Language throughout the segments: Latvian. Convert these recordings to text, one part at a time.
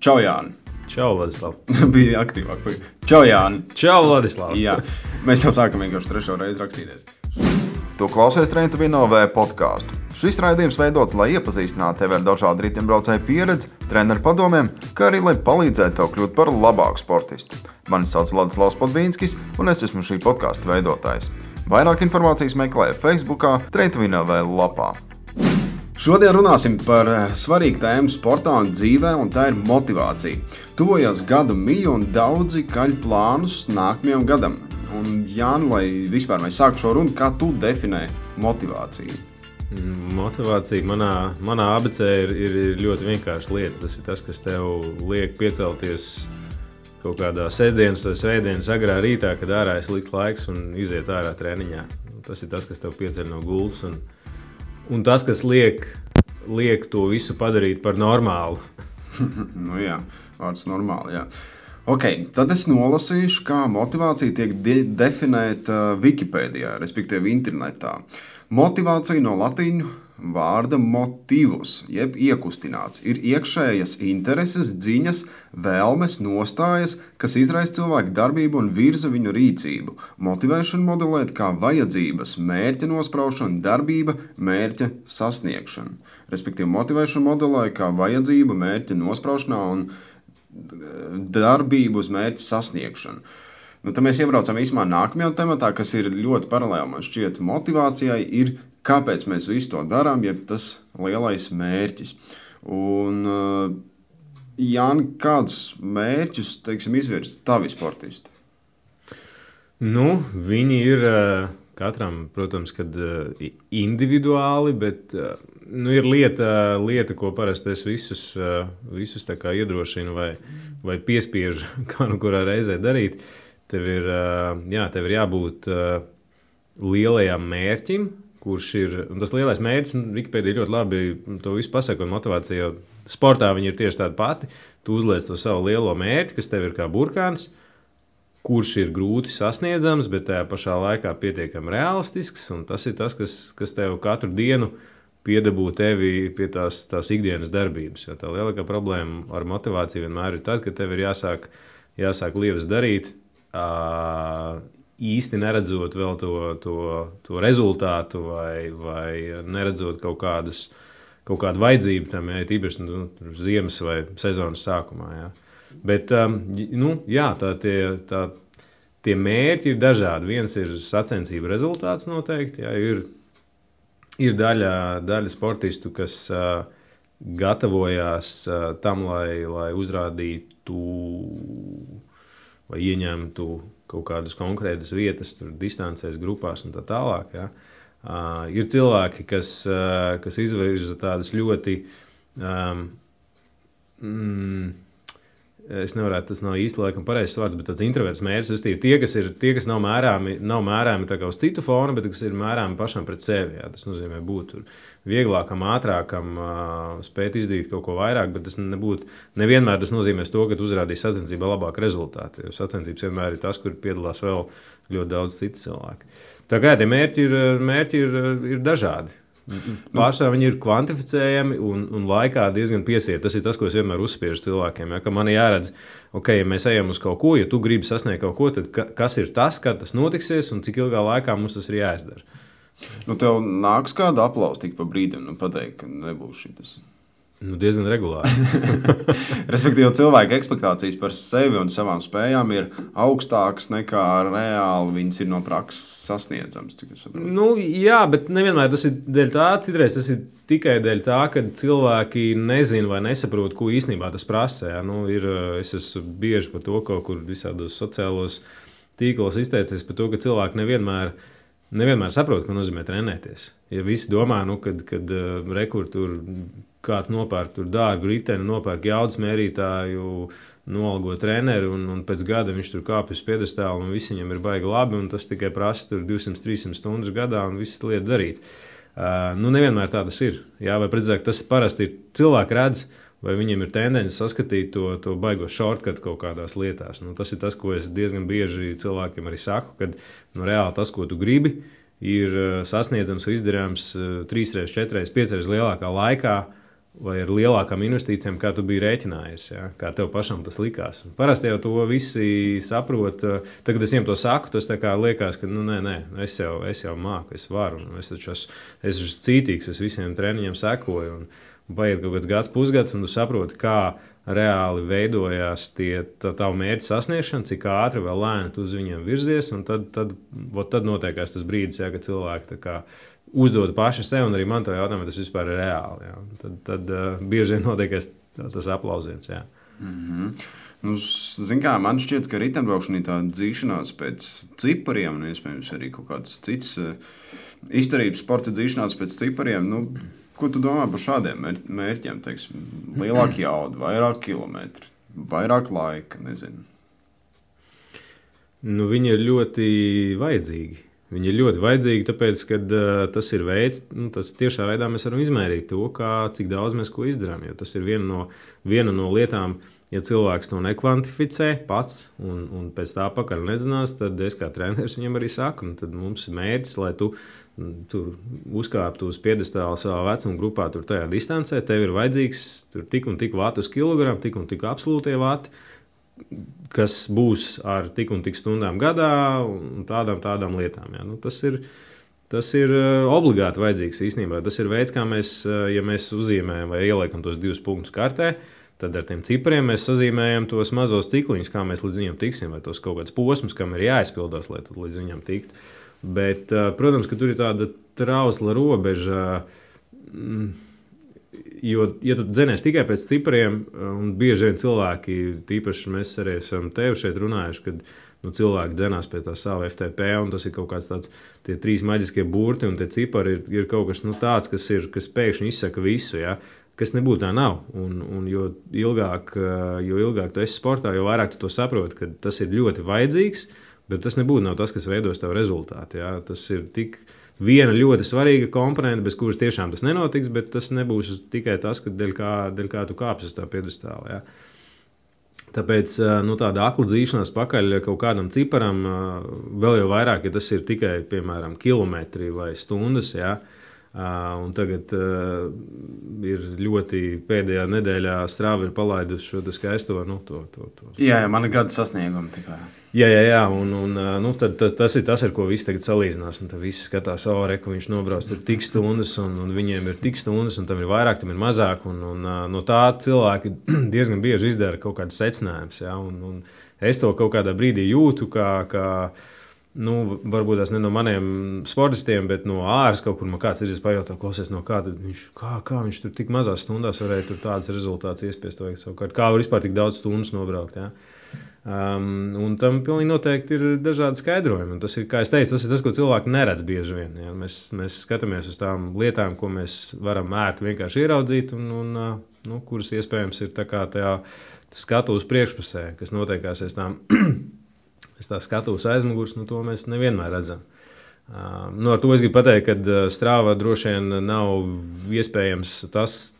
Čau, Jāni. Čau, Vladislav. Bija aktīvāk. Čau, Jāni. Čau, Vladislav. Jā, mēs jau sākam vienkārši trešo reizi rakstīties. Tu klausies Trentuvino-V podkāstu. Šis raidījums veidots, lai iepazīstinātu tevi ar dažādu riteņbraucēju pieredzi, treneru padomiem, kā arī lai palīdzētu tev kļūt par labāku sportistu. Mani sauc Vladislavs Podvīnskis, un es esmu šī podkāsta veidotājs. Vairāk informācijas meklē Facebookā, Trentuvino-V lapā. Šodien runāsim par svarīgu tēmu sportā un dzīvē, un tā ir motivācija. Tuvojās gadu miju un daudzi kaļ plānus nākamajam gadam. Un, Jāni, lai vispār mēs sāktu šo runu, kā tu definē motivāciju? Motivācija manā abecē ir ļoti vienkārša lieta. Tas ir tas, kas tev liek piecelties kaut kādā sestdienas vai svētdienas agrā rītā, kad ārā ir slikts laiks un iziet ārā treniņā. Tas ir tas, kas tev pieceļ no gultas un tas, kas liek to visu padarīt par normālu. Nu jā, vārds normāli, jā. Ok, tad es nolasīšu, kā motivācija tiek definēta Wikipēdijā, respektīvi internetā. Motivācija no latīņu vārda motivus, jeb iekustināts, ir iekšējas intereses, ziņas, vēlmes, nostājas, kas izraisa cilvēku darbību un virza viņu rīcību. Motivēšanu modelēt kā vajadzības, mērķa nospraušana, darbība, mērķa sasniegšana. Respektīvi, motivēšanu modelē kā vajadzība, mērķa nospraušanā un darbību uz mērķa sasniegšanu. Nu, tad mēs iebraucam īsumā nākamajā tematā, kas ir ļoti paralēli, man šķiet, motivācijai, ir kāpēc mēs visu to darām, jeb tas lielais mērķis. Un, Jāni, kādus mērķus, teiksim, izvirza tavi sportisti? Nu, viņi ir katram, protams, kad individuāli, bet ir lieta, ko parasti es visus tā kā iedrošinu vai piespiežu kā nu kurā reizē darīt. Tev ir jābūt lielajam mērķim, kurš ir, un tas lielais mērķis, Wikipēdija ļoti labi to visu pasaka, un motivācija jau sportā viņi ir tieši tāda pati. Tu uzliec to savu lielo mērķi, kas tev ir kā burkāns, kurš ir grūti sasniedzams, bet tajā pašā laikā pietiekami realistisks, un tas ir tas, kas tev katru dienu piedabū tevi pie tās ikdienas darbības. Jo tā lielākā problēma ar motivāciju vienmēr ir tad, ka tev ir jāsāk lietas darīt, īsti neredzot vēl to rezultātu vai neredzot kaut kādu vajadzību tam, ja tīpaši ziemas vai sezonas sākumā. Ja. Bet tie mērķi ir dažādi. Viens ir sacensību rezultāts noteikti. Ja. Ir daļa sportistu, kas gatavojās tam, lai uzrādītu vai ieņemtu kaut kādas konkrētas vietas, tur distancēs, grupās un tā tālāk. Ja. Ir cilvēki, kas izvirza tādas ļoti, es nevarētu, tas nav īsti laikam pareizs vārds, bet tāds introverts mērķis, tie, kas nav mērāmi tā kā uz citu fonu, bet kas ir mērāmi pašam pret sevi. Jā. Tas nozīmē būt vieglākam, ātrākam, spēt izdarīt kaut ko vairāk, bet tas nevienmēr tas nozīmēs to, ka tu uzrādīsi sacensībā labāku rezultātu. Jo sacensības vienmēr ir tas, kur piedalās vēl ļoti daudz citu cilvēku. Tā kā tie mērķi ir dažādi. Pārsvarā viņi ir kvantificējami un laikā diezgan piesiet. Tas ir tas, ko es vienmēr uzspiežu cilvēkiem. Ja, ka man jāredz, ja mēs ejam uz kaut ko, ja tu gribi sasniegt kaut ko, tad kas ir tas, kad tas notiksies un cik ilgā laikā mums tas ir jāizdara. Nu, tev nāks kāda aplausa tik pa brīdim, pateikt, ka nebūs šitas. Diezgan regulāri. Respektīvi, cilvēka ekspektācijas par sevi un savām spējām ir augstākas nekā reāli viņas ir no prakses sasniedzams. Jā, bet nevienmēr tas ir dēļ tā. Citreiz tas ir tikai dēļ tā, ka cilvēki nezina vai nesaprot, ko īstenībā tas prasa. Ja? Es esmu bieži par to kaut kur visādos sociālos tīklos izteicies par to, ka cilvēki nevienmēr saprot, ko nozīmē trenēties. Ja visi domā, kad rekur tur kāds nopērk tur dārgu riteni, nopērk jaudas mērītāju, noalgo treneri un pēc gada viņš tur kāpj uz piedestālu un viss viņam ir baigi labi un tas tikai prasa tur 200-300 stundas gadā un visas lietas darīt. Nevienmēr tā tas ir. Jā, vai precīzāk, tas parasti ir cilvēki redz, vai viņiem ir tendence saskatīt to baigo shortcut kaut kādās lietās. Tas ir tas, ko es diezgan bieži cilvēkiem arī saku, kad reāli tas, ko tu gribi, ir sasniedzams un izdarāms 3, 4, 5 lielākā laikā, vai ar lielākām investīcijām, kā tu biji rēķinājies, ja? Kā tev pašam tas likās. Un parasti jau to visi saprot. Tad, kad es viņiem to saku, tas liekas, ka nē, es jau māku, es varu. Es esmu cītīgs, es visiem treniņiem sekoju. Un paiet kaut kāds gads, pusgads, un tu saproti, kā reāli veidojās tavu mērķu sasniegšana, cik ātri vai lēni tu uz viņiem virzies. Tad notiekās tas brīdis, ja, kad cilvēki uzdod paši sev, un arī man to jautājumu, vai tas vispār ir reāli. Ja. Tad bieži vien notiekās tas aplausiens. Ja. Nu, kā, man šķiet, ka riteņbraukšana ir tāda dzīšanās pēc cipariem, un iespējams arī kaut kāds cits izturības sporta dzīšanās pēc cipariem. Nu, ko tu domā par šādiem mērķiem? Teiksim, lielāka jauda, vairāk kilometri, vairāk laika, nezinu. Nu, viņi ir ļoti vajadzīgi. Viņi ir ļoti vajadzīgi, tāpēc, ka tas ir veids, tas tiešā veidā mēs varam izmērīt to, cik daudz mēs ko izdarām. Jo tas ir viena no lietām, ja cilvēks to nekvantificē pats un pēc tā pakaļ nezinās, tad es kā treneris viņam arī saku, tad mums ir mērķis, lai tu tur uzkāptu uz piedestāla savā vecuma grupā, tur tajā distancē, tev ir vajadzīgs tur tik un tik vati uz kilogramu, tik un tik absolūtie vati, kas būs ar tik un tik stundām gadā un tādām lietām. Ja. Nu, tas ir obligāti vajadzīgs īstenībā. Tas ir veids, kā mēs, ja mēs uzzīmējam vai ieliekam tos 2 punktus kartē, tad ar tiem cipriem mēs sazīmējam tos mazos cikliņus, kā mēs līdz viņam tiksim, vai tos kaut kāds posms, kam ir jāizpildās, lai tu līdz viņam tiktu. Bet, protams, ka tur ir tāda trausla robeža, jo, ja tu dzenies tikai pēc cipriem, un bieži vien cilvēki, tīpaši mēs arī esam tevi šeit runājuši, kad cilvēki dzenās pie tā sava FTP, un tas ir kaut kāds tāds, tie 3 maģiskie burti, un tie cipari ir kaut kas tāds, kas pēkšņi izsaka visu, ja, kas nebūtu tā nav. Un jo ilgāk tu esi sportā, jo vairāk tu to saproti, ka tas ir ļoti vajadzīgs, bet tas nebūtu nav tas, kas veidos tavu rezultātu. Ja. Tas ir tik viena ļoti svarīga komponente, bez kuras tiešām tas nenotiks, bet tas nebūs tikai tas, ka dēļ kā tu kāpsi uz tā piedestāla. Ja. Tāpēc tāda akla dzīšanās pakaļ kaut kādam ciparam, vēl jau vairāk, ja tas ir tikai, piemēram, kilometri vai stundas, ja. Un tagad ir ļoti pēdējā nedēļā Strava ir palaidusi šo skaisto. Jā, man ir gada sasniegumi tikai. Jā, un tad tas ir tas, ar ko visi tagad salīdzinās. Un tad visi skatās, ka viņš nobrauc tur tik stundas, un viņiem ir tik stundas, un tam ir vairāk, tam ir mazāk. Un no tā cilvēki diezgan bieži izdara kaut kādas secinājumus. Ja? Un es to kaut kādā brīdī jūtu, kā varbūt tas ne no maniem sportistiem, bet no āras kaut kur man kāds ir pajautā, klausies, no kā viņš tur tik mazās stundās varēja tur tādas rezultātus iespiest. Kā var vispār tik daudz stundas nobraukt. Ja? Un tam pilnīgi noteikti ir dažādi skaidrojumi. Un tas ir, kā es teicu, tas ir tas, ko cilvēki neredz bieži vien. Ja? Mēs skatāmies uz tām lietām, ko mēs varam ērti vienkārši ieraudzīt, un kuras iespējams ir tā kā tajā skatuves priekšpusē, kas notiekās aiz tām. Es tā skatos aizmugurs, to mēs nevienmēr redzam. Ar to es gribu pateikt, ka Strava droši vien nav iespējams tas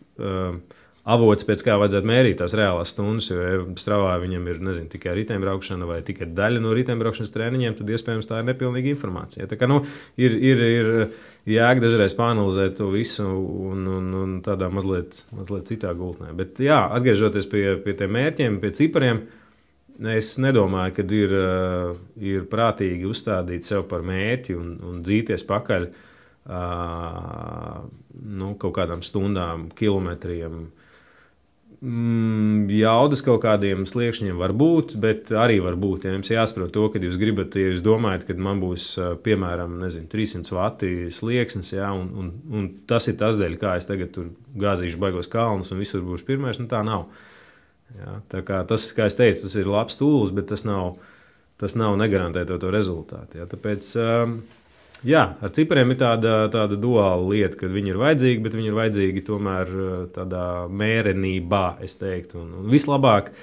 avots, pēc kā vajadzētu mērīt tās reālās stundas, jo Stravā viņam ir tikai riteņbraukšana vai tikai daļa no riteņbraukšanas treniņiem, tad iespējams tā ir nepilnīga informācija. Tā kā ir jēga dažreiz pāanalizēt to visu un tādā mazliet citā gultnē. Bet jā, atgriežoties pie tiem mērķiem, pie cipariem, es nedomāju, ka ir prātīgi uzstādīt sev par mērķi un dzīties pakaļ kaut kādām stundām, kilometriem. Jaudas kaut kādiem sliekšņiem var būt, bet arī var būt. Ja jums jāsaprot to, ka jūs gribat, ja jūs domājat, ka man būs, piemēram, 300 vati slieksnis, ja, un tas ir tas dēļ, kā es tagad tur gāzīšu baigos kalnus un visur būšu pirmais, tā nav. Ja, tā kā tas, kā es teicu, tas ir labs tūlis, bet tas nav negarantē to rezultātu. Ja. Tāpēc, ar cipariem ir tāda duāla lieta, ka viņi ir vajadzīgi, bet viņi ir vajadzīgi tomēr tādā mērenībā, es teiktu. Un vislabāk,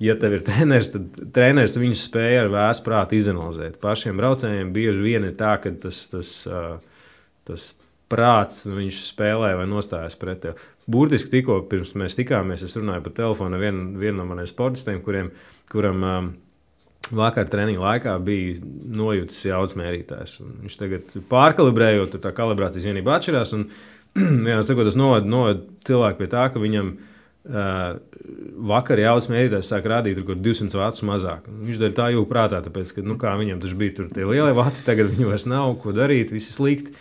ja tev ir treneris, tad treneris viņus spēja ar vēsu prātu izanalizēt. Pašiem braucējiem bieži vien ir tā, ka tas prāts viņš spēlē vai nostājas pret tevi. Burtiski tikko pirms mēs tikāmies, es runāju pa telefonu ar vienu no maniem sportistiem, kuram vakar treniņa laikā bija nojūtas jaudas mērītājs. Viņš tagad pārkalibrējot, tā kalibrācijas vienība atšķirās, un jā, sakot, tas noved cilvēku pie tā, ka viņam vakar jaudas mērītājs sāk rādīt tur 200 vatus mazāk. Viņš daļ tā jūg prātā, tāpēc, ka, kā viņam taču bija tur tie lielie vati, tagad viņu vairs nav, ko darīt, visi slikti.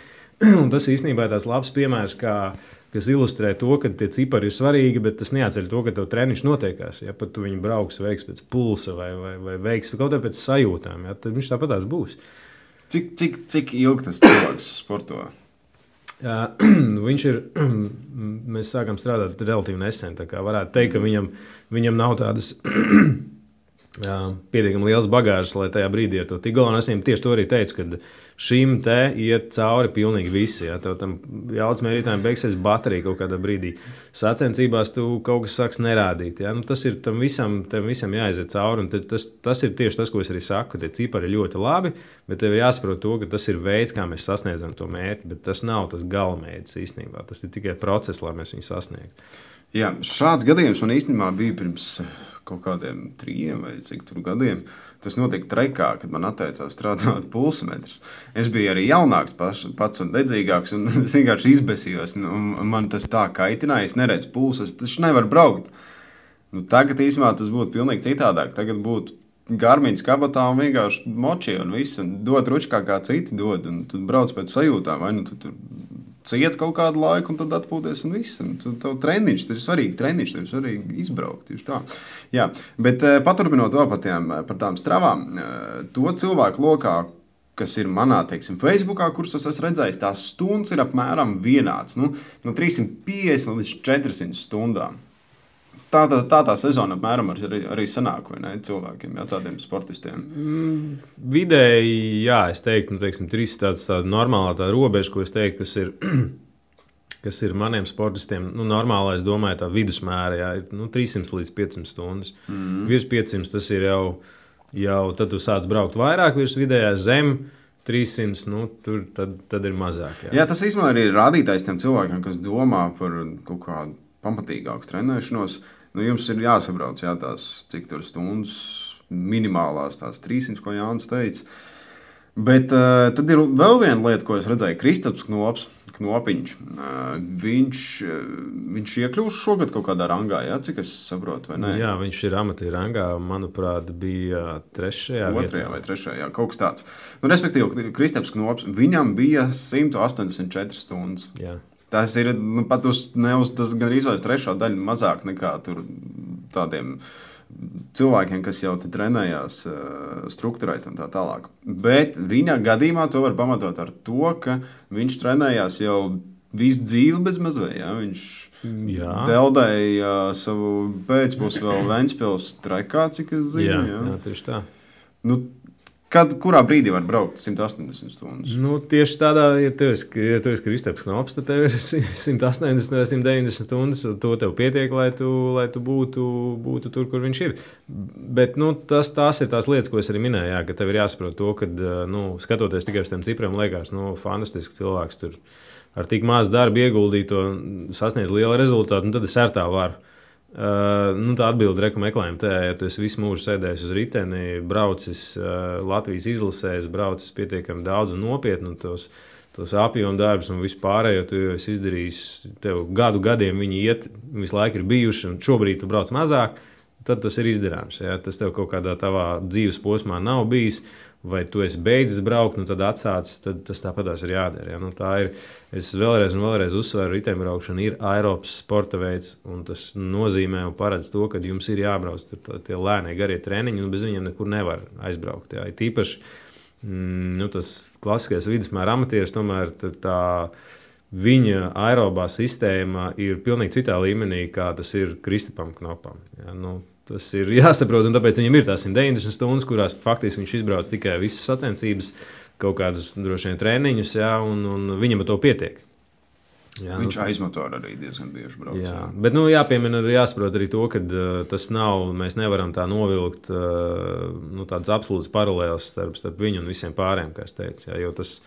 Un tas īstenībā ir tāds labs piemērs, kas ilustrē to, ka tie cipari ir svarīgi, bet tas neatceļ to, ka tev treniņš notiekās. Ja pat tu viņu brauks, veiks pēc pulsa vai veiks kaut kā pēc sajūtām, ja, tad viņš tāpatās būs. Cik ilgi tas cilvēks sporto? Viņš ir, mēs sākam strādāt relatīvi nesen, tā kā varētu teikt, ka viņam nav tādas pietiekami liels bagāžas, lai tajā brīdī ar to tik galā. Es viņam tieši to arī teicu, ka šim te iet cauri pilnīgi visi. Ja? Tev tam jaudas mērītājiem beigsies baterija kaut kādā brīdī. Sacensībās tu kaut kas sāks nerādīt. Ja? Nu, tas ir tam visam jāaiziet cauri. Un tas ir tieši tas, ko es arī saku, ka tie cipari ir ļoti labi, bet tev ir jāsaprot to, ka tas ir veids, kā mēs sasniedzam to mērķi, bet tas nav tas galamērķis īstenībā. Tas ir tikai process, lai mēs viņu sasniegtu. Jā, šāds gadījums man īstenībā bija pirms kaut kādiem 3 vai cik tur gadiem. Tas notika Trekā, kad man atteicās strādāt pulsmetrs. Es biju arī jaunāks pats un dedzīgāks, un es vienkārši izbesījos. Man tas tā kaitināja, es neredzu pulsu, es taču nevaru braukt. Tagad īstenībā tas būtu pilnīgi citādāk. Tagad būtu Garmiņas kabatā un vienkārši moči un viss, un dod ručkā kā citi dod, un tad brauc pēc sajūtām, vai nu tu ciet kaut kādu laiku, un tad atpūties un viss. Un tev treniņš, tas ir svarīgi treniņš, tev ir svarīgi izbraukt. Tieši tā. Jā, bet paturpinot to par tām stravām, to cilvēku lokā, kas ir manā, teiksim, Facebookā, kurus es esmu redzējis, tās stundas ir apmēram vienāds. No 350 līdz 400 stundām. Tā sezona apmēram arī sanāk, vai ne, cilvēkiem, jā, tādiem sportistiem? Vidēji, jā, es teiktu, 3 tāda normālā tā robeža, ko es teiktu, kas ir maniem sportistiem, normālā, es domāju, tā vidusmēra, jā, ir 300 līdz 500 stundas. Virs 500 tas ir jau tad tu sāc braukt vairāk, virs vidējā zem 300, tur tad ir mazāk. Jā, tas īstenībā arī ir rādītājs tiem cilvēkiem, kas domā par kaut kādu pamatīgāku trenēšanos. Jums ir jāsabrauc, jā, tās cik tur stundas minimālās, tās 300, ko Jānis teica. Bet tad ir vēl viena lieta, ko es redzēju. Kristaps Knopiņš. Viņš iekļūst šogad kaut kādā rangā, jā, cik es saprotu, vai ne? Jā, viņš ir amatieru rangā, manuprāt, bija 3. vietā. Vai 3. jā, kaut kas tāds. Respektīvi, Kristaps Knops, viņam bija 184 stundas. Jā. Tas ir pat uz gan izvēles 3. daļu mazāk nekā tur tādiem cilvēkiem, kas jau te trenējās strukturēt un tā tālāk. Bet viņa gadījumā to var pamatot ar to, ka viņš trenējās jau visu dzīvi bez mazvei. Ja? Viņš deldēja savu pēcpus vēl Ventspils Trekā, cik es zinu. Jā, tieši tā. Kurā brīdī var braukt 180 stundas? Tieši tādā, ja tu esi Kristaps Knops, tad tev ir 180 vai 190 stundas. To tev pietiek, lai tu būtu tur, kur viņš ir. Bet tās ir tās lietas, ko es arī minēju, jā, ka tev ir jāsaprot to, ka skatoties tikai uz tiem cipriem, liekas, fantastisks cilvēks tur ar tik maz darbu ieguldīt to sasniedz lielu rezultātu, un tad es ar tā varu. Tā atbilde reku meklējuma tajā, ja tu esi visu mūžu sēdējis uz riteni, braucis Latvijas izlasēs, braucis pietiekami daudz un nopietni, un tos apjomu darbus un visu pārējo tu esi izdarījis, tev gadiem viņi iet, visu laiku ir bijuši, un šobrīd tu brauc mazāk, tad tas ir izdarāms. Ja? Tas tev kaut kādā tavā dzīves posmā nav bijis, vai tu esi beidzis braukt, tad atsācis, tad tas tāpatās ir jādara. Ja? Tā ir, es vēlreiz uzsveru, riteņbraukšana ir aerobs sporta veids, un tas nozīmē un paredz to, ka jums ir jābrauc tur tie lēnie garie treniņi, un bez viņiem nekur nevar aizbraukt. Ja? Tīpaši tas klasiskais vidusmēra amatieris, tomēr tā viņa aerobā sistēma ir pilnīgi citā līmenī, kā tas ir Kristapam Knopam. Ja? Tas ir jāsaprot, un tāpēc viņam ir tās 190 stundas, kurās faktiski viņš izbrauc tikai visas sacensības, kaut kādus droši vien treniņus, jā, un viņam ar to pietiek. Jā, viņš aizmotor arī diezgan bieži brauc. Jā. Bet jāpiemina arī jāsaprot arī to, ka tas nav, mēs nevaram tā novilkt tādas absolūtas paralēles starp viņu un visiem pārējiem, kā es teicu. Jā, jo tas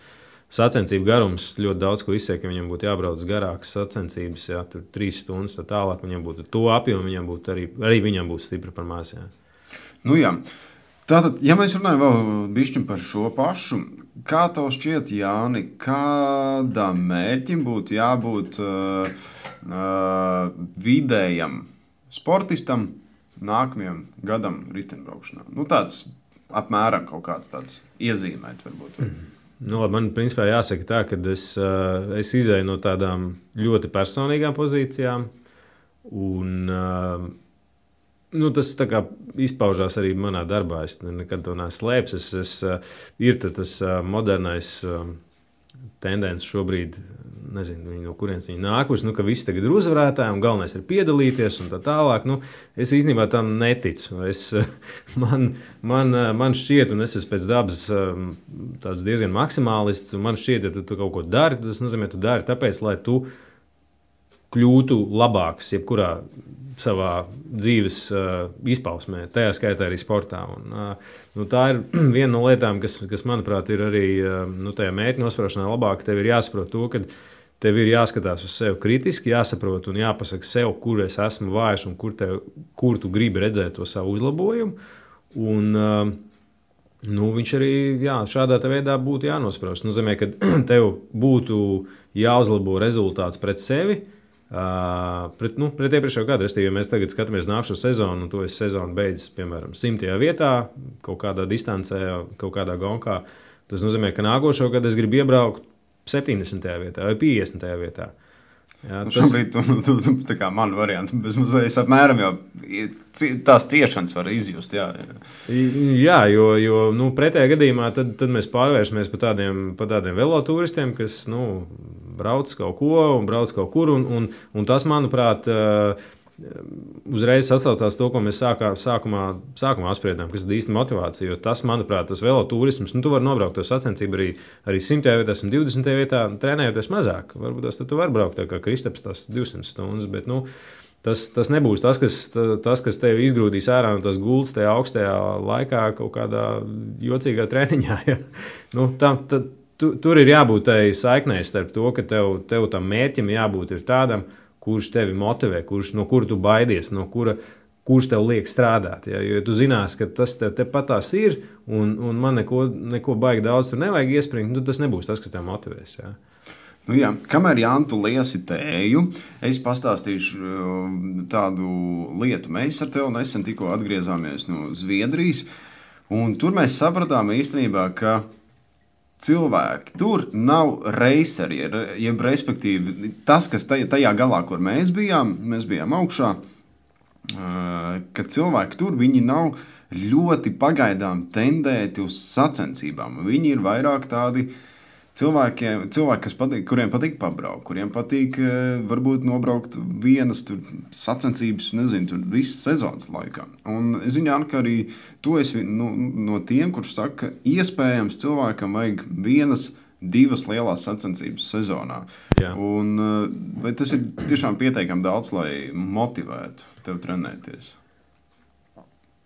sacensību garums ļoti daudz ko izsaka, ka viņam būtu jābrauc garākas sacensības, jā, tur 3 stundas, tā tālāk viņam būtu to apjomu, viņam būtu arī viņam būtu stipri par maz. Jā. Jā. Tātad, ja mēs runājam vēl bišķiņ par šo pašu, kā tev šķiet, Jāni, kādam mērķim būtu jābūt vidējam sportistam nākamajam gadam riteņbraukšanā? Nu, tāds apmēram kaut kāds tāds iezīmēt varbūt. Nu, man principā jāsaka tā, ka es izēju no tādām ļoti personīgām pozīcijām. Un, tas tā kā izpaužās arī manā darbā. Es nekad to neesmu slēpis. Ir tas modernais tendence šobrīd, nezinu, no kurienes viņi nākuši, ka visi tagad ir uzvarētāji un galvenais ir piedalīties un tā tālāk. Es īstenībā tam neticu. Man šķiet, un es esmu pēc dabas tāds diezgan maksimālists, un man šķiet, ja tu kaut ko dari, tas nozīmē, tu dari tāpēc, lai tu kļūtu labāks jebkurā savā dzīves izpausmē, tajā skaitā arī sportā. Un, tā ir viena no lietām, kas manuprāt, ir arī tajā mērķa nospraušanā labāk. Tev ir jāsaprot to, ka tev ir jāskatās uz sevi kritiski, jāsaprot un jāpasaka sev, kur es esmu vājš un kur tu gribi redzēt to savu uzlabojumu. Un, viņš arī šādā veidā būtu jānosprauž. Tas nozīmē, ka tev būtu jāuzlabo rezultāts pret sevi, pret iepriekšējo gadu. Restīvi, ja mēs tagad skatāmies nākamo sezonu, un to es sezonu beidzis, piemēram, 100. vietā, kaut kādā distancē, kaut kādā gonkā, tas nozīmē, ka nākošo gadu es gribu iebraukt 70. vietā vai 50. vietā. Jā, šobrīd tu tā kā man variants, bez mazliet apmēram jau tās ciešanas var izjust. Jā, jo pretējā gadījumā tad mēs pārvēršamies par tādiem velotūristiem, kas brauc kaut ko un brauc kaut kur. Un tas, manuprāt, uzreiz sasaucās to, ko mēs sākumā apspriedām, kas ir īsta motivācija. Jo tas, manuprāt, tas velotūrisms, tu vari nobraukt to sacensību arī 100. vietā, 120. vietā, trenējoties mazāk. Varbūt tu vari braukt tā kā Kristaps tās 200 stundas, bet tas nebūs tas, kas tevi izgrūdīs ārā no tās gultas tajā augstajā laikā kaut kādā jocīgā treniņā. Ja? Tur ir jābūt tai saiknei starp to, ka tev tam mērķim jābūt ir tādam, kurš tevi motivē, no kura tu baidies, kurš tev liek strādāt. Ja? Jo tu zinās, ka tas tepat tās ir, un man neko baigi daudz tur nevajag iespringt, tas nebūs tas, kas tev motivēs. Ja? Kamēr Jāni tu liesi tēju, es pastāstīšu tādu lietu. Mēs ar tevi nesen tikko atgriezāmies no Zviedrijas, un tur mēs sapratām īstenībā, ka cilvēki tur nav reiseri, jeb respektīvi tas, kas tajā galā, kur mēs bijām augšā, ka cilvēki tur, viņi nav ļoti pagaidām tendēti uz sacensībām. Viņi ir vairāk tādi cilvēki, kuriem patīk pabraukt, kuriem patīk varbūt nobraukt vienas sacensības, visas sezonas laikā. Un es zinu, ka arī tu esi no tiem, kurš saka, ka iespējams cilvēkam vajag 1-2 lielās sacensības sezonā. Jā. Un, vai tas ir tiešām pietiekami daudz, lai motivētu tev trenēties?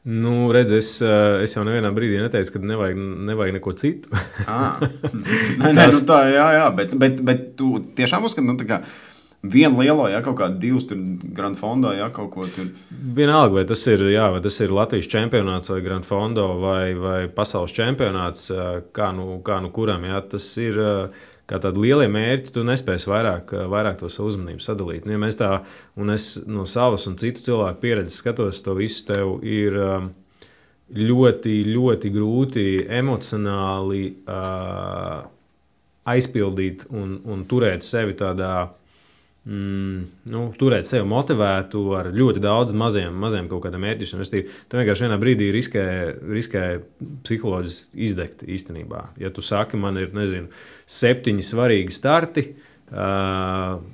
Redz, es jau nevienā brīdī neteicu, ka nevajag neko citu. Jā, bet tu tiešām uzskati, ka vienu lielo, kaut kādu 2 Grand Fondo, kaut ko tur. Vienalga, vai tas ir Latvijas čempionāts vai Grand Fondo vai pasaules čempionāts, kā kuram, tas ir kā tādi lielie mērķi, tu nespēsi vairāk to savu uzmanību sadalīt. Ja mēs tā, un es no savas un citu cilvēku pieredzes skatos, to visu tev ir ļoti, ļoti grūti emocionāli aizpildīt un turēt sevi tādā, turēt sevi motivētu ar ļoti daudz maziem kaut kādiem mērķiem. Tu vienkārši vienā brīdī riskē psiholoģiski izdegt īstenībā. Ja tu saki, man ir, 7 svarīgi starti, tas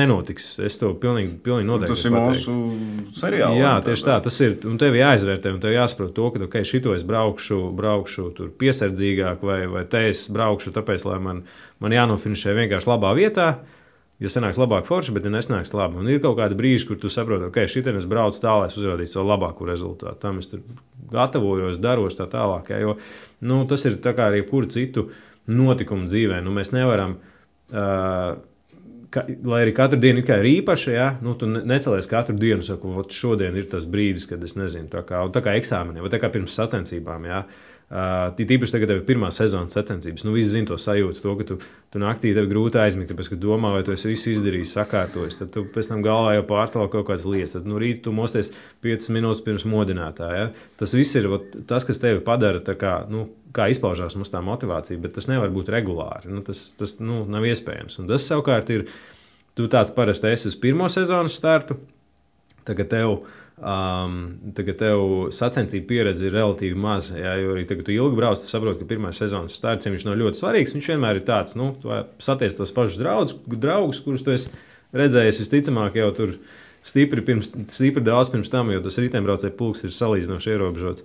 nenotiks. Es to pilnīgi noteikti tas ir mūsu seriāls. Jā, tieši tā. Tas ir, un tev jāizvērtē, un tev jāsaprot to, ka šito es braukšu tur piesardzīgāk, vai te es braukšu tāpēc, lai man jānofinišē vienkārši labā vietā. Ja sanāks labāk forši, bet ja nesnāks labi. Un ir kaut kādi brīži, kur tu saproti, ka šitien es braucu tā, lai es uzrādītu savu labāko rezultātu. Tam es tur gatavojos, daros tā tālāk. Ja, jo tas ir tā kā arī jebkuru citu notikumu dzīvē. Mēs nevaram lai arī katru dienu ir īpaša, ja, nu, tu necelies katru dienu, saku, šodien ir tas brīdis, kad es nezinu, tā kā eksāmeniem, vai tā kā pirms sacensībām. Ja. Tīpaši tagad tev ir pirmā sezonas sacensības. Nu, visi zina to sajūtu, to, ka tu naktī tev grūti aizmigt, tāpēc, ka domā, vai tu esi visu izdarījis, sakārtojis. Tad tu pēc tam galvā jau pārstāv kaut kādas lietas. Tad no rīta tu mosties 5 minūtes pirms modinātā. Ja. Tas viss ir tas, kas tevi padara tā kā, nu, kā izpaužās mums tā motivācija, bet tas nevar būt regulāri. Nu, tas nav iespējams. Un tas savukārt ir, tu tāds parasti esi uz pirmo sezonas startu, tagad tev sacensību pieredze ir relatīvi maza. Ja, jo arī tagad tu ilgi brauc, tu saproti, ka pirmā sezonas starts, viņš nav ļoti svarīgs. Viņš vienmēr ir tāds, nu, satiec tos pašus draugus, kurus tu esi redzējis visticamāk jau tur stipri daudz pirms tam, jo tas riteņbraucēju pulks ir salīdzinoši ierobežots.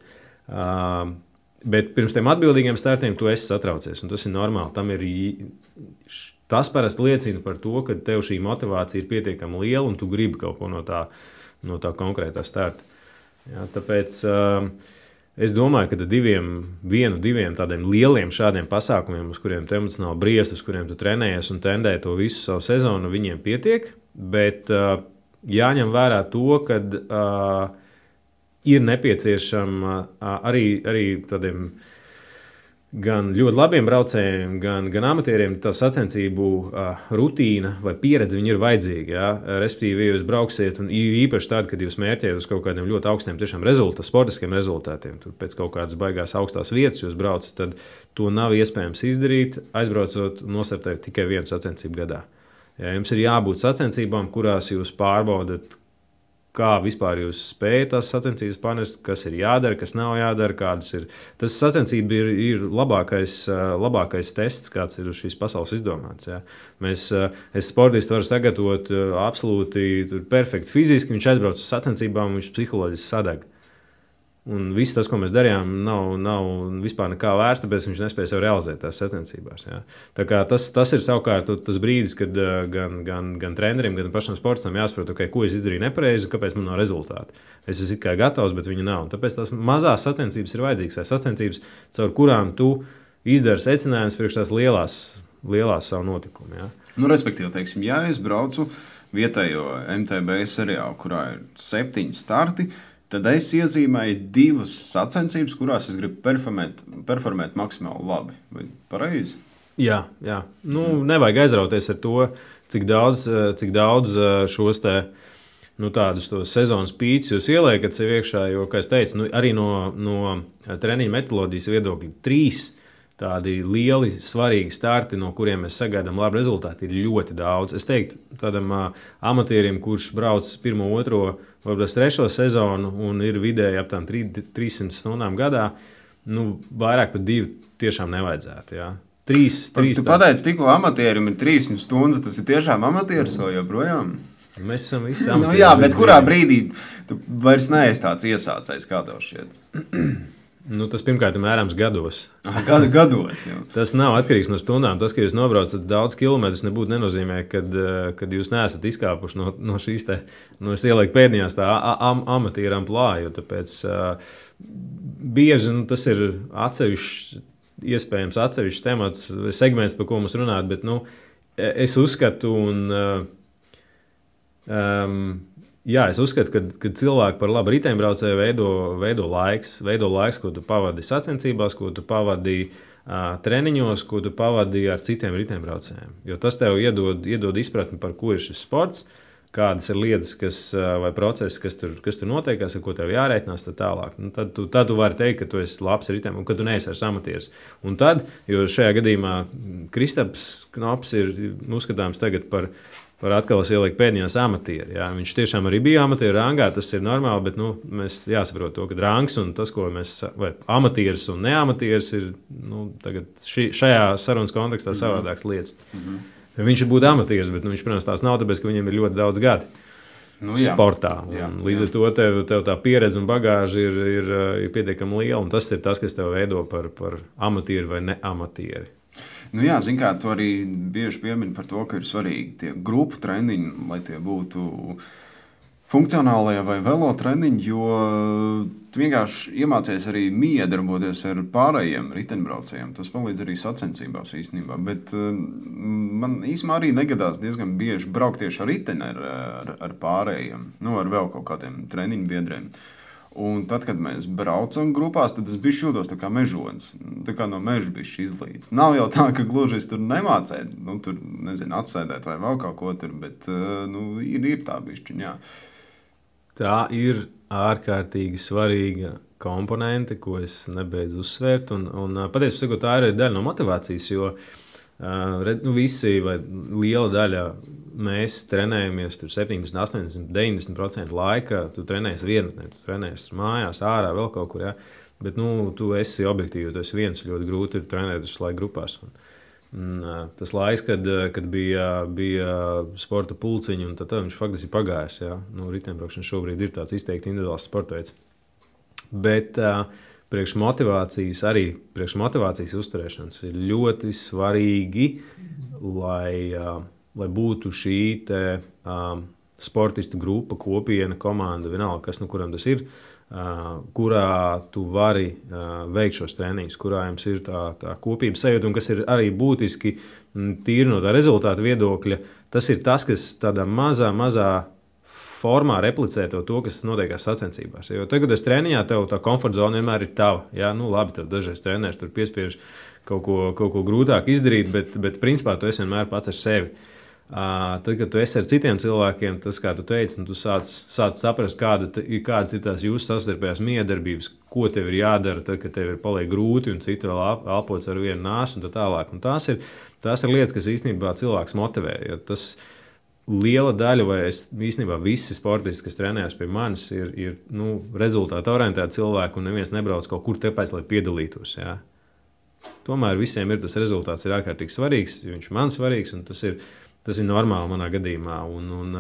Bet pirms tiem atbildīgiem startiem tu esi satraucies, un tas ir normāli. Tas parasti liecina par to, ka tev šī motivācija ir pietiekami liela, un tu gribi kaut ko no tā konkrētā starta. Ja, tāpēc es domāju, ka diviem tādiem lieliem šādiem pasākumiem, uz kuriem tu emocionāli briest, uz kuriem tu trenējies un tendē to visu savu sezonu, viņiem pietiek, bet jāņem vērā to, ka ir nepieciešama arī tādiem gan ļoti labiem braucējiem, gan amatieriem tā sacensību rutīna vai pieredze ir vajadzīga. Ja? Respektīvi, ja jūs brauksiet, un īpaši tad, kad jūs mērķējat uz kaut kādiem ļoti augstiem sportiskiem rezultātiem, tur pēc kaut kādas baigās augstās vietas jūs braucat, tad to nav iespējams izdarīt, aizbraucot un nostartējot tikai vienu sacensību gadā. Ja? Jums ir jābūt sacensībām, kurās jūs pārbaudat, kā vispār jūs spējat tās sacensības panest, kas ir jādara, kas nav jādara, kādas ir. Tas sacensība ir labākais tests, kāds ir uz šīs pasaules izdomāts. Ja. Es sportistu varu sagatavot absolūti perfekti fiziski, viņš aizbrauc uz sacensībām, viņš psiholoģiski sadeg. Un viss tas, ko mēs darījām, nav vispār nekā vērts, tāpēc viņš nespēja sev realizēt tās sacensībās. Ja. Tā kā tas ir savukārt tas brīdis, kad gan treneriem, gan pašam sportistam jāsaprot, okay, ko es izdarīju nepareizi, kāpēc man nav rezultāti. Es esmu kā gatavs, bet viņi nav. Un tāpēc tās mazās sacensības ir vajadzīgas, vai sacensības, caur kurām tu izdari secinājumus priekš tās lielās savu notikumu. Ja. Nu, respektīvi, teiksim, ja es braucu vietējo MTB seriālu, kurā ir 7 starti, tad es iezīmēju 2 sacensības, kurās es gribu performēt maksimāli labi. Vai pareizi? Jā. Nu, nevajag aizrauties ar to, cik daudz šos tādus sezonas pīķus jūs ieliekat sev iekšā, jo, kā es teicu, arī no treniņa metodoloģijas viedokļa 3 tādi lieli, svarīgi starti, no kuriem mēs sagaidām labu rezultātu, ir ļoti daudz. Es teiktu, tādam amatierim, kurš brauc 1, 2, varbūt 3 sezonu un ir vidēji ap 300 stundām gadā, nu, vairāk par 2 tiešām nevajadzētu. Ja. 3 Tu pateici, tikko amatierim ir 300 stundas, tas ir tiešām amatieris vai joprojām? Mēs esam visi amatieri. Nu, jā, bet kurā brīdī tu vairs neesi tāds iesācējs, kā tev šķiet? Nu, tas pirmkārt ir mērāms gados. Gados jau. Tas nav atkarīgs no stundām. Tas, ka jūs nobraucat daudz kilometrus, nebūtu nenozīmē, kad jūs neesat izkāpuši no šīs es ielieku pēdējās tā amatieru amplitūdu, jo tāpēc bieži tas ir atsevišķs temats, segments, par ko mums runāt, bet es uzskatu Jā, es uzskatu, ka cilvēki par labu riteņbraucēju veido laiks, ko tu pavadi sacensībās, ko tu pavadi treniņos, ko tu pavadi ar citiem riteņbraucējiem. Jo tas tev iedod izpratni, par ko ir šis sports, kādas ir lietas, vai procesi, kas tur notiekās, ar ko tev jārēķinās, tad tālāk. Nu, tad tu vari teikt, ka tu esi labs riteņbraucējs un ka tu neesi vairs amatieris. Un tad, jo šajā gadījumā Kristaps Knops ir uzskatāms tagad par atkal es ielieku pēdējās amatieri. Jā. Viņš tiešām arī bija amatieru rangā, tas ir normāli, bet mēs jāsaprot to, ka rangs un tas, ko mēs, vai amatieris un neamatieris ir tagad šajā sarunas kontekstā savādāks lietas. Viņš ir būt amatieris, bet viņš, protams, tās nav, tāpēc, ka viņam ir ļoti daudz gadi sportā. Līdz ar to tev tā pieredze un bagāža ir pietiekami liela, un tas ir tas, kas tev veido par amatieri vai neamatieri. Nu jā, zin kā, tu arī bieži piemini par to, ka ir svarīgi tie grupu treniņi, lai tie būtu funkcionālie vai velo treniņi, jo tu vienkārši iemācies arī miedarboties ar pārējiem riteņbraucējiem. Tas palīdz arī sacensībās īstenībā. Bet man īstenībā arī negadās diezgan bieži braukt tieši ar riteni ar pārējiem, ar vēl kaut kādiem treniņu biedriem. Un tad, kad mēs braucam grupās, tad es bišķi jūtos tā kā mežonis. Tā kā no meža bišķi izlīdz. Nav jau tā, ka gluži es tur nemācēju, tur, nezinu, atsēdēt vai vēl kaut ko tur, bet, ir tā bišķiņ, jā. Tā ir ārkārtīgi svarīga komponente, ko es nebeidzu uzsvērt. Un patiesībā sakot, tā ir daļa no motivācijas, jo visi vai liela daļa mēs trenējamies 70, 80, 90% laika. Tu trenējies vienatnē, tu trenējies mājās, ārā, vēl kaut kur. Ja? Bet tu esi objektīvi, tu esi viens. Ļoti grūti ir trenēt visu laiku grupās. Tas laiks, kad bija sporta pulciņi, un tad viņš faktiski ir pagājis. Ja? Riteņbraukšana šobrīd ir tāds izteikti individuāls sporta veids. Bet priekš motivācijas uzturēšanas ir ļoti svarīgi, lai būtu šī sportistu grupa, kopiena, komanda, vienalga, kas kuram tas ir, kurā tu vari veikt šos treniņus, kurā jums ir tā kopības sajūta, un kas ir arī būtiski tīri no tā rezultāta viedokļa. Tas ir tas, kas tādā mazā formā replicē to, kas notiekās sacensībās. Jo tagad, kad es treniņā, tev tā komforta zona vienmēr ir tava. Jā, labi, tev dažreiz trenēs tur piespiež kaut ko grūtāk izdarīt, bet principā tu esi vienmēr pats ar sevi. Tad, kad tu esi ar citiem cilvēkiem, tas, kā tu teici, tu sāc saprast, kādas ir tās jūsu savstarpējās miedarbības, ko tev ir jādara, tad, kad tev ir paliek grūti un citi vēl elpots ar vienu nāsu un tā tālāk. Un tās ir lietas, kas īstenībā cilvēks motivē. Jo tas liela daļa, vai īstenībā visi sportisti, kas trenējas pie manis, ir rezultātu orientēti cilvēki, un neviens nebrauc kaut kur tāpēc, lai piedalītos. Jā. Tomēr visiem tas rezultāts ir ārkārtīgi svarīgs, jo viņš man svarīgs, un tas ir normāli manā gadījumā. Un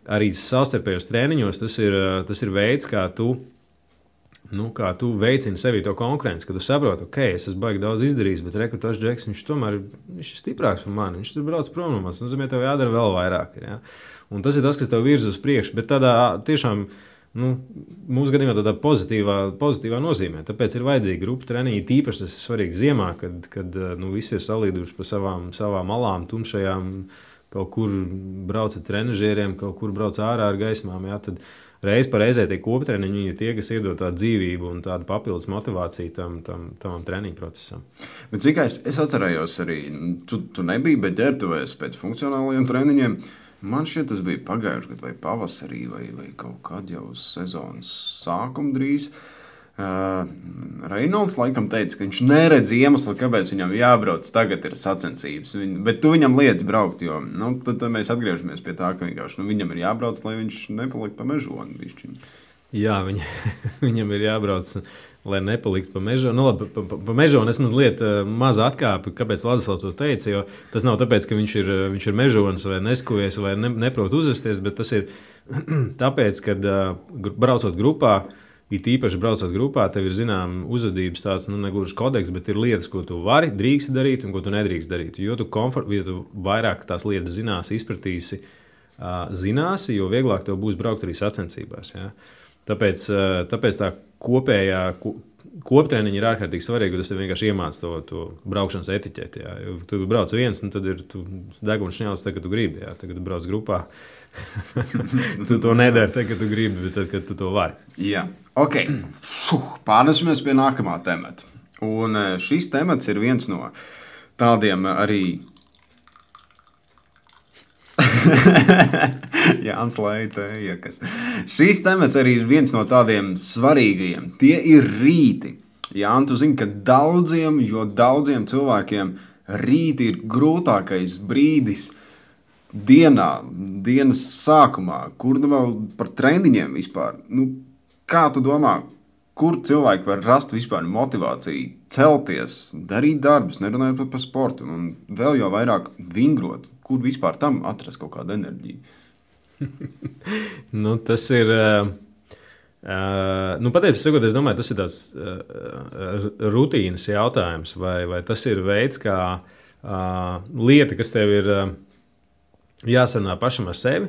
arī savstarpējos treniņos tas ir veids, kā tu veicini sevī to konkurenci, kad tu saproti, ok, es esmu baigi daudz izdarījis, bet rekrutēs Džeks, viņš tomēr ir stiprāks par mani, viņš tur brauc prom no manis, nozīmē, tev jādara vēl vairāk. Ja? Un tas ir tas, kas tev virza uz priekšu, bet tādā tiešām, mūsu gadījumā tādā pozitīvā nozīmē. Tāpēc ir vajadzīga grupa treniņi, tīpaši tas ir svarīgi ziemā, kad visi ir salīduši pa savām malām, tumšajām, kaut kur brauc ar trenažieriem, kaut kur brauc ārā ar gaismām, jā, tad reiz pa reizē tie koptreniņi ir tie, kas iedod tādu dzīvību un tādu papildus motivāciju tam treniņu procesam. Bet cik es atcerējos arī, tu nebija, bet ģērbtuvēs pēc funkcionālajiem treniņiem. Man šķiet, tas bija pagājuši gadu vai pavasarī vai kaut kad jau sezonas sākuma drīz. Reinolds laikam teica, ka viņš neredz iemeslu, kāpēc viņam jābrauc tagad ir sacensības. Bet tu viņam liedz braukt, jo tad mēs atgriežamies pie tā, ka vienkārši viņam ir jābrauc, lai viņš nepalikt pa mežoni. Bišķiņ. Jā, viņam ir jābrauc, lai nepalikt pa mežoni. Pa mežoni es mazliet maza atkāpi, kāpēc Ladislavs to teica, jo tas nav tāpēc, ka viņš ir mežonis vai neskuvies vai neprot uzvesties, bet tas ir tāpēc, kad braucot grupā, it īpaši braucot grupā, tev ir zinām uzvedības tāds, negluži kodeks, bet ir lietas, ko tu vari, drīksti darīt un ko tu nedrīkst darīt. Jo tu vairāk tās lietas izpratīsi, zināsi, jo vieglāk tev būs braukt arī sacensībās. Ja? Tāpēc tā kopējā koptreniņa ir ārkārtīgi svarīga, jo tas tev vienkārši iemāc to braukšanas etiķeti. Ja? Jo tu brauc viens, tad ir deguns šņauts, kad tu gribi. Ja? Tad, kad tu brauc grupā, tu to nedari, tad, kad tu gribi, bet tad, kad tu to vari. Jā, ok. Pārnesimies pie nākamā temata. Un šis temats ir viens no tādiem arī... Jānis Leitējakas. Šīs temats arī ir viens no tādiem svarīgajiem. Tie ir rīti. Jāni, tu zini, ka daudziem cilvēkiem rīti ir grūtākais brīdis dienas sākumā, kur vēl par treniņiem vispār. Kā tu domā, kur cilvēki var rast vispār motivāciju celties, darīt darbus, nerunājot par sportu un vēl jau vairāk vingrot? Kur vispār tam atrast kaut kādu enerģiju? Tas ir... Patiesībā sakot, es domāju, tas ir tāds rutīnas jautājums, vai tas ir veids, kā lieta, kas tev ir jāsarunā pašam ar sevi.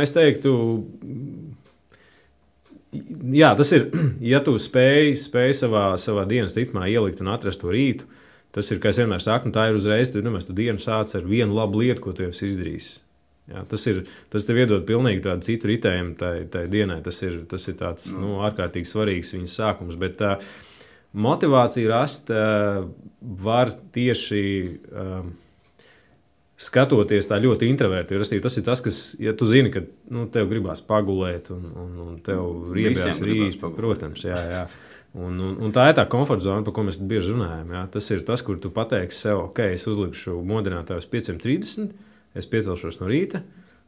Es teiktu, Jā, tas ir, ja tu spēj savā dienas ritmā ielikt un atrast to rītu, tas ir, kā es vienmēr saku, tā ir uzreiz, tu dienu sāc ar vienu labu lietu, ko tu jau esi izdarījis. Jā, tas tev iedod pilnīgi tādu citu ritējumu tai dienai. Tas ir tāds ārkārtīgi svarīgs viņas sākums. Bet motivāciju rast var tieši skatoties tā ļoti introverti. Tas ir tas, kas, ja tu zini, ka tev gribās pagulēt un tev riebjās rīt, protams, jā. Un tā ir tā komforta zona, par ko mēs bieži runājam. Jā. Tas ir tas, kur tu pateiksi sev, ok, es uzlikšu modinātāju uz 5:30, es piecelšos no rīta,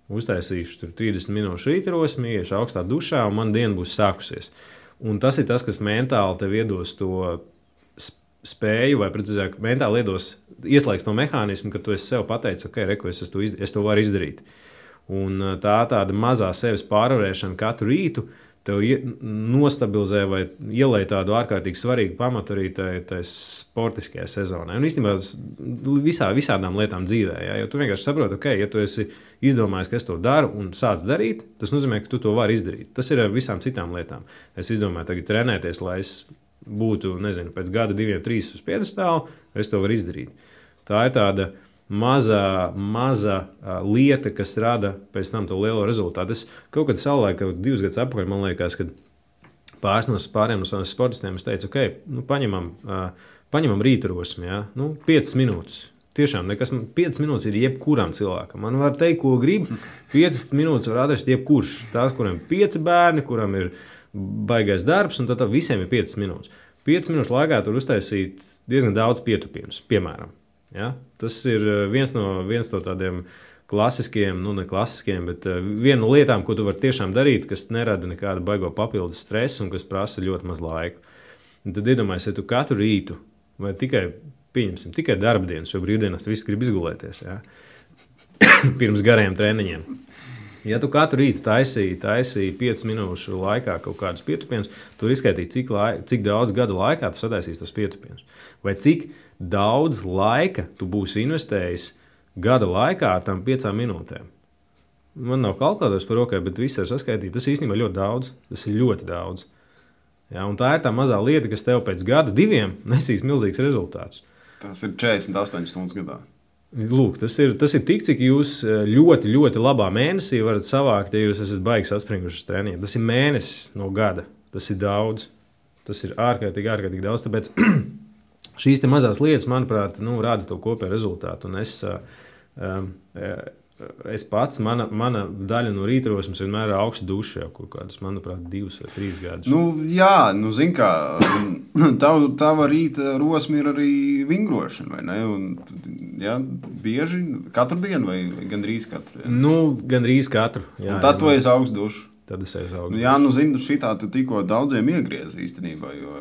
uztaisīšu tur 30 minūšu rītarosmi, iešu augstā dušā un man diena būs sākusies. Un tas ir tas, kas mentāli tev iedos to spēju, vai precīzāk, mentāli ieslēgs to mehānismu, ka tu esi sev pateicis, ok, reku, es to varu izdarīt. Un tā tāda mazā sevis pārvarēšana katru rītu tev nostabilizē vai ielēj tādu ārkārtīgi svarīgu pamatu arī tai sportiskajai sezonai. Un īstenībā visādām lietām dzīvē. Ja? Jo tu vienkārši saproti, ok, ja tu esi izdomājis, ka es to daru un sāc darīt, tas nozīmē, ka tu to vari izdarīt. Tas ir ar visām citām lietām. Es izdomāju tagad trenēties, lai es būtu, pēc gada 2, 3 uz piedestālu, es to varu izdarīt. Tā ir tāda maza lieta, kas rada pēc tam to lielo rezultātu. Es kaut kad savulaik, 2 gadus atpakaļ, man liekas, kad pāriem no saviem sportistiem es teicu, ok, paņemam rītarosmi, ja? 5 minūtes. Tiešām, 5 minūtes ir jebkuram cilvēkam. Man var teikt, ko grib, 5 minūtes var atrast jebkurš. Tās, kuram ir 5 bērni, kuram ir baigais darbs, un tad visiem ir 5 minūtes. 5 minūšu laikā tur uztaisīt diezgan daudz pietupienus, piemēram. Ja? Tas ir viens no tādiem klasiskiem, ne klasiskiem, bet viena no lietām, ko tu vari tiešām darīt, kas nerada nekādu baigo papildus stresu un kas prasa ļoti maz laiku. Un tad iedomājies, ja tu katru rītu vai tikai darbdienas, jo brīvdienās visi grib izgulēties, ja? Pirms gariem treniņiem. Ja tu katru rītu taisīji 5 minūšu laikā kaut kādus pietupienus, tu izskaitīji, cik daudz gada laikā tu sataisīsi tos pietupienus. Vai cik daudz laika tu būsi investējis gada laikā ar tām 5 minūtēm. Man nav kalkulators par rokai, bet viss ir saskaitīts. Tas īstenībā ļoti daudz. Tas ir ļoti daudz. Ja, un tā ir tā mazā lieta, kas tev pēc gada 2 nesīs milzīgs rezultāts. Tas ir 48 stundas gadā. Lūk, tas ir tik, cik jūs ļoti, ļoti labā mēnesī varat savākt, ja jūs esat baigi saspringuši uz treniņiem. Tas ir mēnesis no gada. Tas ir daudz. Tas ir ārkārtīgi daudz. Tāpēc šīs te mazās lietas, manuprāt, rāda to kopēju rezultātu. Un es pats, mana daļa no rītarosmes vienmēr ir augsta duša jau kaut kādus, manuprāt, 2 vai 3 gadus. Zin kā, tava rīta rosme ir arī vingrošana, vai ne? Un, bieži katru dienu vai gandrīz katru? Gandrīz katru. Jā, un tad tu esi augsta duša. Tad es esmu augsta duša. Zinu, šitā tu tikko daudziem iegriezi īstenībā, jo...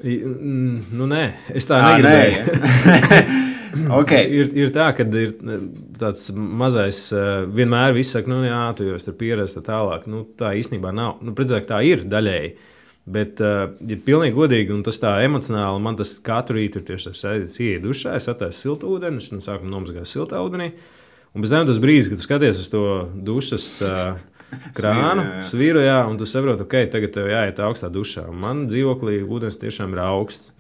Nē, es tā negribēju. Okay. Ir tā, ka ir tāds mazais, vienmēr viss saka, tu jau esi pieredzējis tālāk. Tā īstenībā nav. Precīzāk, tā ir daļēji. Bet, ja pilnīgi godīgi, un tas tā emocionāli, man tas katru rītu ir tieši tas aizies, ieiet dušā, es attaisu siltu ūdeni, es sākumā nomazgāju siltā ūdenī. Un pēc tam tas brīdis, kad tu skaties uz to dušas krānu, svīru, un tu saproti, ok, tagad tev jāiet augstā dušā. Un man dzīvoklī ūdens tiešām ir augsts.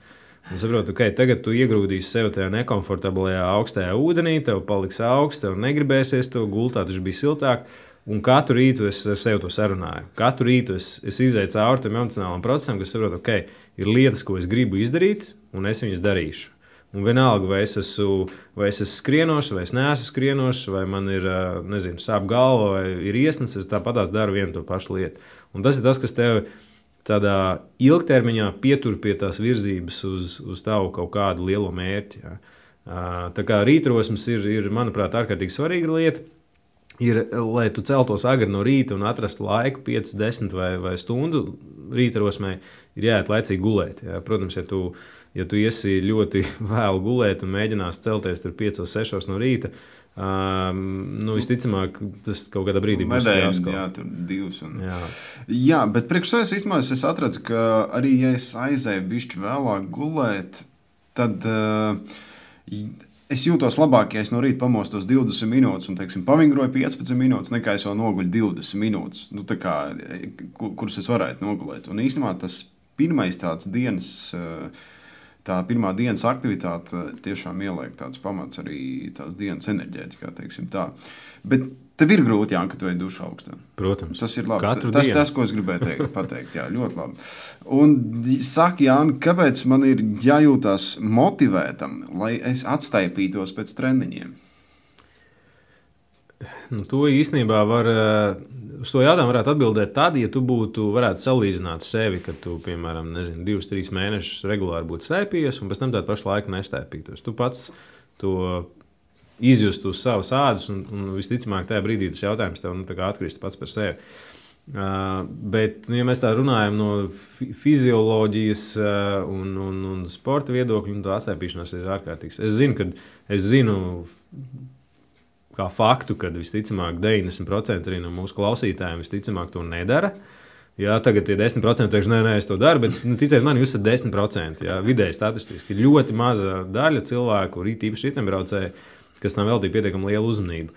Un saprotu, ok, tagad tu iegrūdīsi sev tajā nekomfortablajā augstajā ūdenī, tev paliks augsts, tev negribēsies, tev gultā taču bija siltāk. Un katru rītu es ar sevi to sarunāju. Katru rītu es izēju cauri tam emocionālam procesam, kas saprotu, ok, ir lietas, ko es gribu izdarīt, un es viņas darīšu. Un vienalga, vai es esmu skrienošs, vai es neesmu skrienošs, vai man ir, sāp galva, vai ir iesnas, es tāpatās daru vienu to pašu lietu. Un tas ir tas, kas tev tādā ilgtermiņā pietur pie tās virzības uz tavu kaut kādu lielo mērķi. Ja. Tā kā rītrosmes ir, manuprāt, ārkārtīgi svarīga lieta. Lai tu celtos agri no rīta un atrastu laiku 5, 10 vai stundu rītrosmē, ir jāiet laicīgi gulēt. Ja. Protams, ja tu iesi ļoti vēlu gulēt un mēģinās celties tur 5, 6 no rīta, visticamāk, tas kaut kādā brīdī būs jāsko. Jā, tur 2. Jā, bet priekš sevis īstenībā es atredzu, ka arī, ja es aizēju bišķi vēlāk gulēt, tad es jūtos labāk, ja es no rīta pamostos 20 minūtes un, teiksim, pavingroju 15 minūtes, nekā es vēl noguļu 20 minūtes, nu, tā kā, kuras es varētu nogulēt. Un īstenībā tas pirmais tāds dienas, tā pirmā dienas aktivitāte tiešām ieliek tāds pamats arī tās dienas enerģētikā, teiksim tā. Bet tev ir grūti, Jāni, ka tu ej dušu augstā. Protams. Tas ir labi. Katru dienu. Tas, ko es gribēju pateikt. Jā, ļoti labi. Un saka, Jāni, kāpēc man ir jājūtās motivētam, lai es atstaipītos pēc treniņiem? Nu, to īstenībā uz to jautājumu varētu atbildēt tad, ja tu varētu salīdzināt sevi, kad tu, piemēram, 2-3 mēnešus regulāri būtu staipījies, un pēc tam tādu pašu laiku nestaipītos. Tu pats to izjust uz savas ādas, un visticamāk tajā brīdī tas jautājums tev atkrist pats par sevi. Bet, ja mēs tā runājam no fizioloģijas un sporta viedokļa, tā atstaipīšanās ir ārkārtīgs. Es zinu kā faktu, ka visticamāk 90% arī no mūsu klausītājiem visticamāk to nedara. Jā, tagad tie 10% teikšu, nē, es to daru, bet ticiet man, jūs esat 10%. Jā, vidēji statistiski ir ļoti maza daļa cilvēku, īpaši riteņbraucēji, kas tam veltīja pietiekami lielu uzmanību.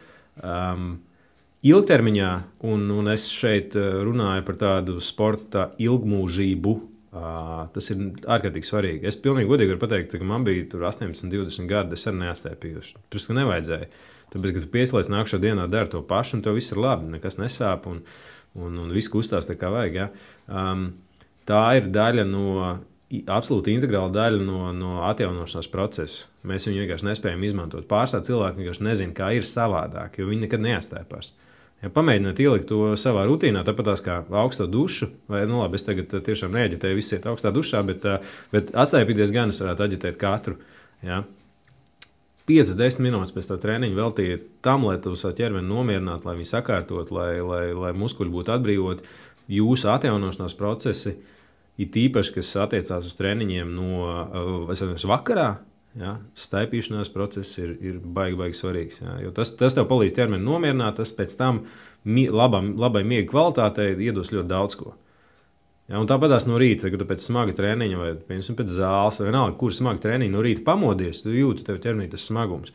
Ilgtermiņā, un es šeit runāju par tādu sporta ilgmūžību, tas ir ārkārtīgi svarīgi. Es pilnīgi godīgi varu pateikt, ka man bija 18, 20 gadi, es arī neatstaipījuši. Protams, ka nevajadzēja. Tāpēc, ka tu piesliec nākšā dienā dari to pašu, un tev viss ir labi, nekas nesāp, un viss kustās tā kā vajag. Ja? Tā ir daļa absolūti integrāla daļa no atjaunošanās procesa. Mēs viņu vienkārši nespējam izmantot. Pārsvarā cilvēki vienkārši nezina, kā ir savādāk, jo viņi nekad neatstaipās. Ja pamēģināt ielikt to savā rutīnā, tāpat kā augsto dušu, vai labi, es tagad tiešām neaģitēju visi iet augstā dušā, bet atstaipīties gan es varētu aģitēt katru. Ja? 5-10 minūtes pēc tā treniņa veltīja tam, lai tu savu ķermeni nomierinātu, lai viņi sakārtot, lai muskuļi būtu atbrīvoti. Jūsu atjaunošanās procesi ir tīpaši, kas attiecās uz treniņiem no vakarā. Ja, staipīšanās process ir baigi svarīgs. Ja, jo tas tev palīdz ķermeni nomierināt, tas pēc tam labai miega kvalitātei iedos ļoti daudz ko. Ja, un tāpatās no rīta, kad tu pēc smaga treniņa vai pēc zāles, vai vienalga, kur smaga treniņa no rīta pamodies, tu jūti tev ķermenī tas smagums.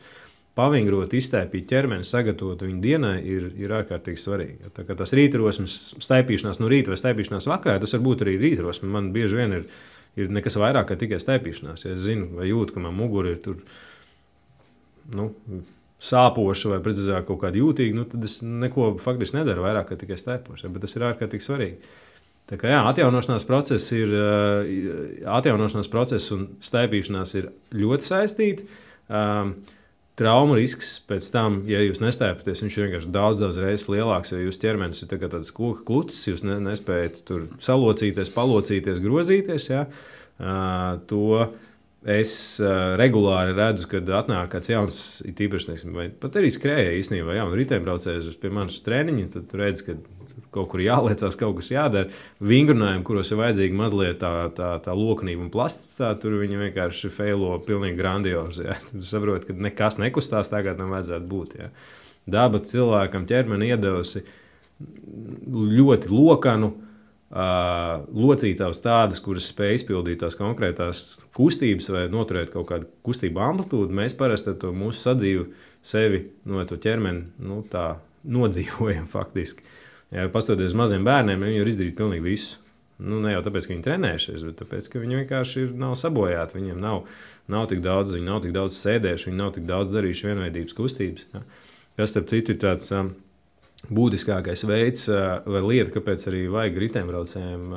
Pavingrot, izstaipīt ķermeni, sagatavot viņu dienai ir ārkārtīgi svarīgi. Ja, tā kā tas rītrosmes staipīšanās no rīta vai staipīšanās vakarā, tas var būt arī rītrosme. Man bieži vien ir nekas vairāk kā tikai staipīšanās. Ja es zinu vai jūtu, ka man mugura ir tur sāpoša vai precīzāk kaut kāda jūtīga, tad es neko faktiski nedaru vairāk kā tikai staipoša. Ja, bet tas ir ārkārtīgi svarīgi. Tā kā jā, atjaunošanās process un staipīšanās ir ļoti saistīti. Traumu risks pēc tam, ja jūs nestaipaties, viņš ir vienkārši daudz reizes lielāks, jo jūsu ķermenis ir tāds koka klucis, jūs nespējat tur salocīties, palocīties, grozīties. Ja? To es regulāri redzu, kad atnāk kāds jauns, tīpaši, vai pat arī skrēja īstenībā, jaunu riteņbraucējus pie manas treniņa, tad tu redzi, ka kaut kur jāliecās, kaut kas jādara. Vingrinājumi, kuros ir vajadzīga mazliet tā loknība un plasticitāte, tur viņi vienkārši feilo pilnīgi grandiozi. Ja? Tu saproti, ka nekas nekustās tā, kā tam vajadzētu būt. Ja? Daba cilvēkam ķermeni iedevusi ļoti lokanu, locītavas tādas, kuras spēj izpildīt tās konkrētās kustības vai noturēt kaut kādu kustību amplitūdu. Mēs parasti to mūsu sadzīvu sevi no to ķermeni tā nodzīvojam faktiski. Ja pastoties uz maziem bērniem, viņi var izdarīt pilnīgi visu. Ne jau tāpēc, ka viņi trenējušies, bet tāpēc, ka viņi vienkārši nav sabojāti. Viņiem nav tik daudz, viņi nav tik daudz sēdējuši, viņi nav tik daudz darījuši vienveidības kustības. Ja. Kas, starp citu, ir tāds būtiskākais veids vai lieta, kāpēc arī vajag riteņbraucējiem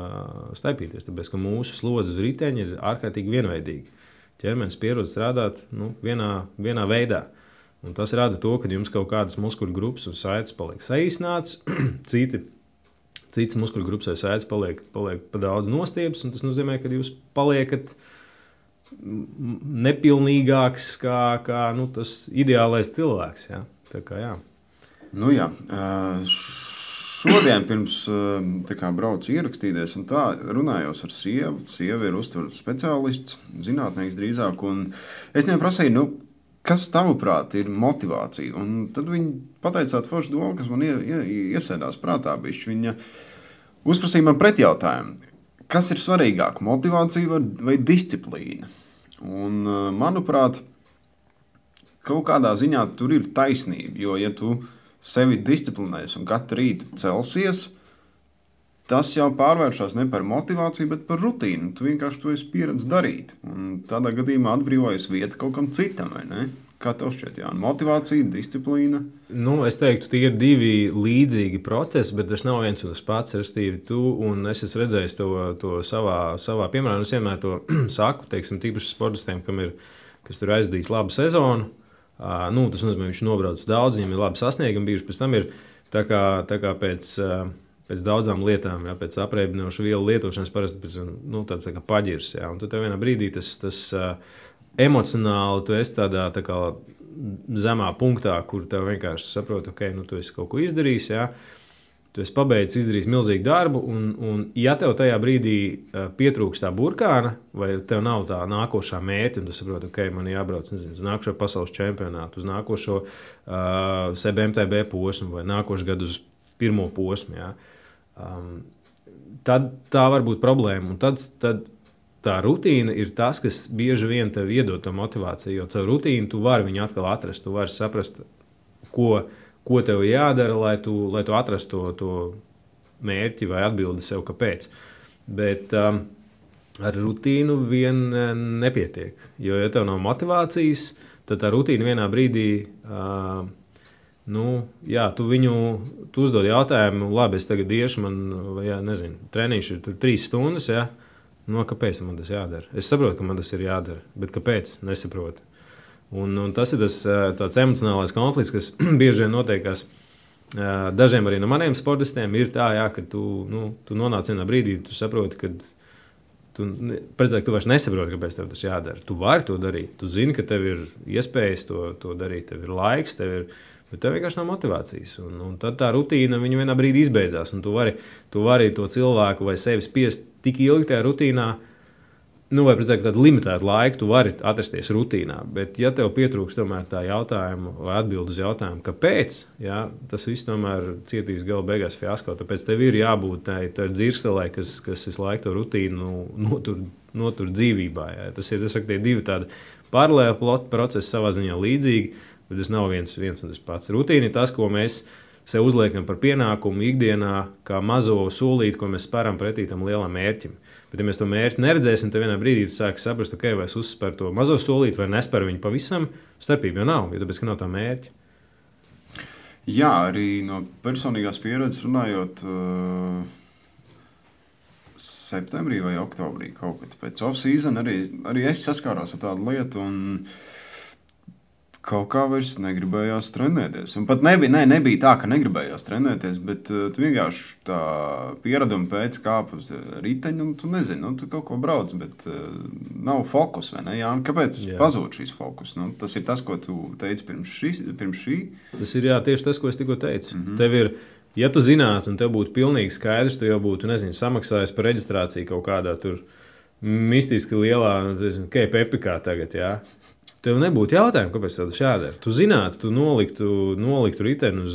staipīties. Tāpēc, ka mūsu slodzes uz riteņa ir ārkārtīgi vienveidīgi. Ķermenis pierod strādāt vienā veidā. Un tas rada to, ka jums kaut kādas muskuļu grupas un saites paliek saīsināts, citas muskuļu grupas vai saites paliek pa daudz nostiepes, un tas nozīmē, ka jūs paliekat nepilnīgāks kā tas ideālais cilvēks. Ja? Tā kā, jā. Jā. Šodien pirms braucu ierakstīties un tā runājos ar sievu. Sieva ir uztveru speciālists, zinātnieks drīzāk, un es viņai prasīju, kas tavuprāt ir motivācija? Un tad viņa pateica tādu foršu domu, kas man iesēdās prātā bišķi. Viņa uzprasīja man pretjautājumu, kas ir svarīgāk, motivācija vai disciplīna? Un, manuprāt, kaut kādā ziņā tur ir taisnība, jo, ja tu sevi disciplinēsi un katru rītu celsies, tas jau pārvēršas ne par motivāciju, bet par rutīnu. Tu vienkārši to esi pieredzējis darīt. Un tādā gadījumā atbrīvojas vieta kaut kam citam, vai ne? Kā tev šķiet, Jāni? Motivācija, disciplīna? Es teiktu, tie ir divi līdzīgi procesi, bet tas nav viens un tas pats. Restīvi, tu un es esmu redzējis to savā piemērā. Es vienmēr to saku, teiksim, tīpaši sportistiem, kas tur aizdīs labu sezonu. Tas nozīmē, viņš nobrauc daudz, viņam ir labi sasniegumi bijuši. Pēc tam ir tā kā pēc daudzām lietām, jā, pēc apreibinošu vielu lietošanas parasti tāds tā kā paģirs. Jā, un tad vienā brīdī tas emocionāli tu esi tādā tā kā zemā punktā, kur tev vienkārši saproti, ok, tu esi kaut ko izdarījis, jā, tu esi pabeidzis, izdarījis milzīgu darbu, un ja tev tajā brīdī pietrūks tā burkāna, vai tev nav tā nākošā mērķa, un tu saproti, ok, man jābrauc, uz nākošo pasaules čempionātu, uz nākošo CBMTB posmu, vai nākošu gadu uz pirmo posmu, jā, tad tā var būt problēma, un tad tā rutīna ir tas, kas bieži vien tev iedod to motivāciju, jo caur rutīnu tu vari viņu atkal atrast, tu vari saprast, ko tev jādara, lai tu atrastu to mērķi vai atbildi sev, kāpēc. Bet ar rutīnu vien nepietiek, jo, ja tev nav motivācijas, tad tā rutīna vienā brīdī, tu uzdod jautājumu, labi, es tagad iešu, treniņš ir 3 stundas, ja? Kāpēc man tas jādara? Es saprotu, ka man tas ir jādara, bet kāpēc? Nesaprotu. Un tas ir tāds emocionālais konflikts, kas bieži vien notiekās. Dažiem arī no maniem sportistiem ir tā, jā, ka tu nonāc vienā brīdī, tu saproti, ka tu vairs nesaproti, kāpēc tev tas jādara. Tu vari to darīt, tu zini, ka tev ir iespējas to darīt, tev ir laiks, bet tev vienkārši nav motivācijas. Un tad tā rutīna vienā brīdī izbeidzās. Un tu vari to cilvēku vai sevi spiest tik ilgi tajā rutīnā, vai precīzāk tādu limitētu laiku, tu vari atrasties rutīnā. Bet ja tev pietrūks tomēr tā jautājuma vai atbildi uz jautājumu, kāpēc, jā, tas viss tomēr cietīs gala beigās fiasko. Tāpēc tev ir jābūt tā dzirstelē, kas visu laiku to rutīnu notur dzīvībā. Jā. Tas ir tie divi tādi paralēli procesi savā ziņā līdzīgi. Bet tas nav viens un tas pats. Rutīna ir tas, ko mēs sev uzliekam par pienākumu ikdienā, kā mazo solīti, ko mēs spēram pretī tam lielam mērķim. Bet, ja mēs to mērķi neredzēsim, tad vienā brīdī tu sāksi saprast, okay, vai es uzspēru to mazo solīti vai nespēru viņu pavisam. Starpība jau nav, jo tāpēc, ka nav tā mērķa. Jā, arī no personīgās pieredzes runājot, septembrī vai oktobrī kaut kad pēc off-season arī es saskāros ar tādu lietu un kaut kā vairs negribējās trenēties. Un pat nebija tā, ka negribējās trenēties, bet tu vienkārši tā piereduma pēc kāp uz riteņu, un tu nezini, tu kaut ko brauc, bet nav fokus, vai ne? Jā, kāpēc pazūd šīs fokus? Tas ir tas, ko tu teici pirms šī? Tas ir tieši tas, ko es tikko teicu. Tev ir, ja tu zinātu, un tev būtu pilnīgi skaidrs, tu jau būtu, samaksājis par reģistrāciju kaut kādā tur mistiski lielā, Epikā tagad, jā. Tev nebūtu jautājumu, kāpēc tev tas jādara. Tu zinātu, tu noliktu riteni uz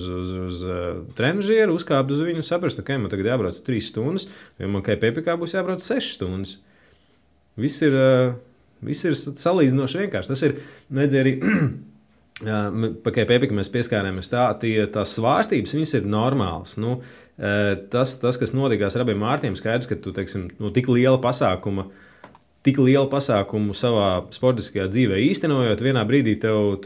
trenižieru, uzkāptu uz viņu un saprastu, ka man tagad jābrauc 3 stundas, jo man Epikā būs jābrauc 6 stundas. Viss ir salīdzinoši vienkārši. Tas ir, arī pa Epikā mēs pieskārāmies tās svārstības, viņas ir normālas. Tas, kas notikās ar abiem Mārtiem, skaidrs, ka tu, teiksim, tik liela pasākumu savā sportiskajā dzīvē īstenojot, vienā brīdī tev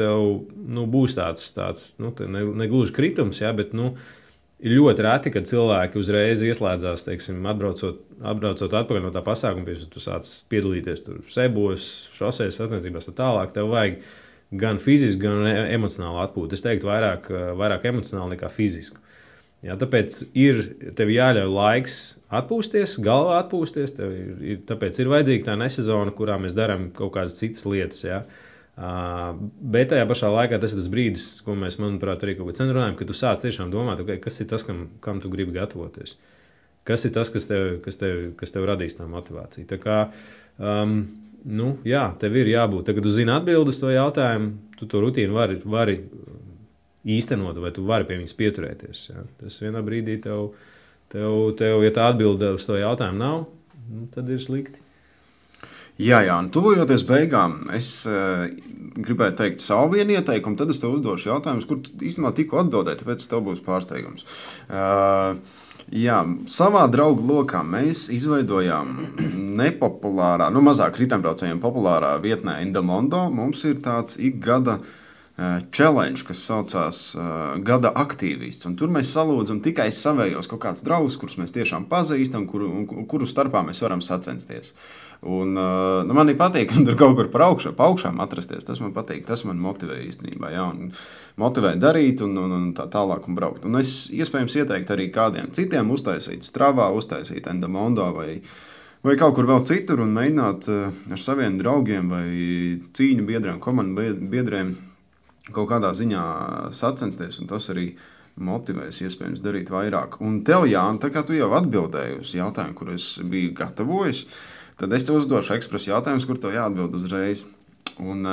būs tāds negluži kritums, ja, bet ir ļoti reti, kad cilvēki uzreiz ieslēdzās, teiksim, atbraucot atpakaļ no tā pasākuma, tu sāc piedalīties tur sebos, šosēs, sacensībās tā tālāk, tev vajag gan fizisku, gan emocionālu atpūtu. Es teiktu vairāk emocionāli nekā fizisku. Jā, tāpēc tev jāļauj laiks atpūsties, galvā atpūsties. Tāpēc ir vajadzīga tā nesezona, kurā mēs darām kaut kādas citas lietas. Jā. Bet tajā pašā laikā tas ir tas brīdis, ko mēs, manuprāt, arī kaut kā runājam, kad tu sāc tiešām domāt, okay, kas ir tas, kam tu gribi gatavoties. Kas ir tas, kas tev radīs tā motivāciju. Tā kā, tev ir jābūt. Tagad tu zini atbildi uz to jautājumu, tu to rutīnu vari īstenot, vai tu vari pie viņas pieturēties. Ja? Tas vienā brīdī tev, ja tā atbilde uz to jautājumu nav, tad ir slikti. Jā, tuvojoties beigām, es gribēju teikt savu vienu ieteikumu, tad es tev uzdošu jautājumus, kur tu īstenībā tikko atbildēji, tāpēc tev būs pārsteigums. Jā, savā draugu lokā mēs izveidojām nepopulārā, mazāk ritembraucējiem populārā vietnē Endomondo. Mums ir tāds ikgada challenge, kas saucās Gada aktīvists. Un tur mēs salūdzam tikai savējos kaut kādus draugus, kurus mēs tiešām pazīstam, kuru starpā mēs varam sacensties. Un, man patīk, ka tur kaut kur pa augšām atrasties. Tas man patīk, tas man motivē īstenībā. Ja, motivē darīt un tā tālāk un braukt. Un es iespējams ieteiktu arī kādiem citiem uztaisīt Stravā, uztaisīt Endomondo vai kaut kur vēl citur un mēģināt ar saviem draugiem vai cīņu biedriem, komandu biedriem kaut kādā ziņā sacensties, un tas arī motivēs iespējams darīt vairāk. Un tev, Jāni, tā kā tu jau atbildēji uz jautājumu, kur es biju gatavojis, tad es tev uzdošu ekspresu jautājumus, kur tev jāatbild uzreiz. Un,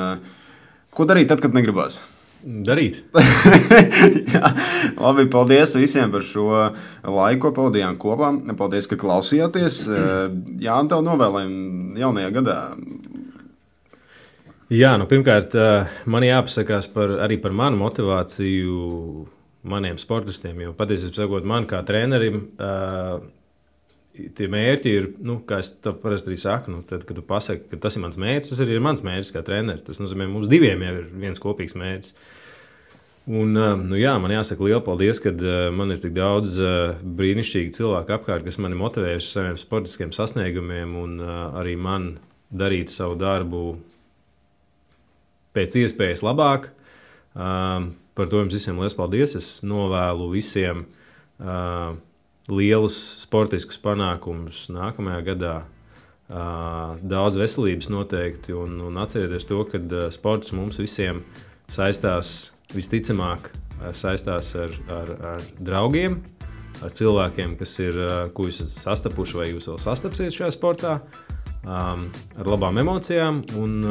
ko darīt tad, kad negribas? Darīt. Jā, labi, paldies visiem par šo laiku, ko pavadījām kopā. Paldies, ka klausījāties. Jāni, tev novēlējam jaunajā gadā. Jā, pirmkārt, man jāpasakās arī par manu motivāciju maniem sportistiem. Jo patiesībā sakot, man kā trenerim, tie mērķi ir, kā es to parasti arī saku, tad, kad tu pasaki, ka tas ir mans mērķis, tas arī ir mans mērķis kā treneris. Tas nozīmē, mums diviem jau ir viens kopīgs mērķis. Un, man jāsaka liela paldies, ka man ir tik daudz brīnišķīgi cilvēku apkārt, kas mani motivējuši saviem sportiskiem sasniegumiem un arī man darīt savu darbu pēc iespējas labāk. Par to jums visiem liels paldies. Es novēlu visiem lielus sportiskus panākumus nākamajā gadā. Daudz veselības noteikti un atcerieties to, ka sports mums visiem saistās visticamāk saistās ar draugiem, ar cilvēkiem, ko jūs esat sastapuši vai jūs vēl sastapsiet šajā sportā. Ar labām emocijām un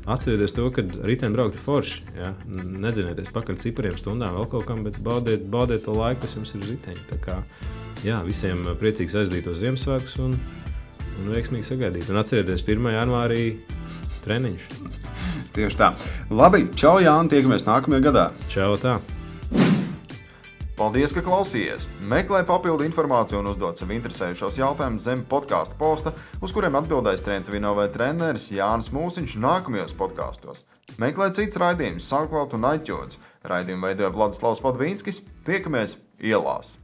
atcerieties to, ka riteņbraukt ir forši. Ja? Nedzinieties pakaļ cipariem stundām vēl kaut kam, bet baudiet to laiku, kas jums ir uz riteņa. Tā kā, visiem priecīgs aizdītos Ziemassvētkus un veiksmīgi sagaidīt. Un atcerieties 1. janvārī treniņš. Tieši tā. Labi, čau Jāni, tiekamies nākamajā gadā. Čau tā. Paldies, ka klausījies! Meklē papildu informāciju un uzdod sev interesējušos jautājumus zem podkāstu posta, uz kuriem atbildēs Trentuvino vai treneris Jānis Mūsiņš nākamajos podkāstos. Meklē cits raidījums SoundCloud un iTunes. Raidījumu veidoja Vladislavs Padvīnskis. Tiekamies ielās!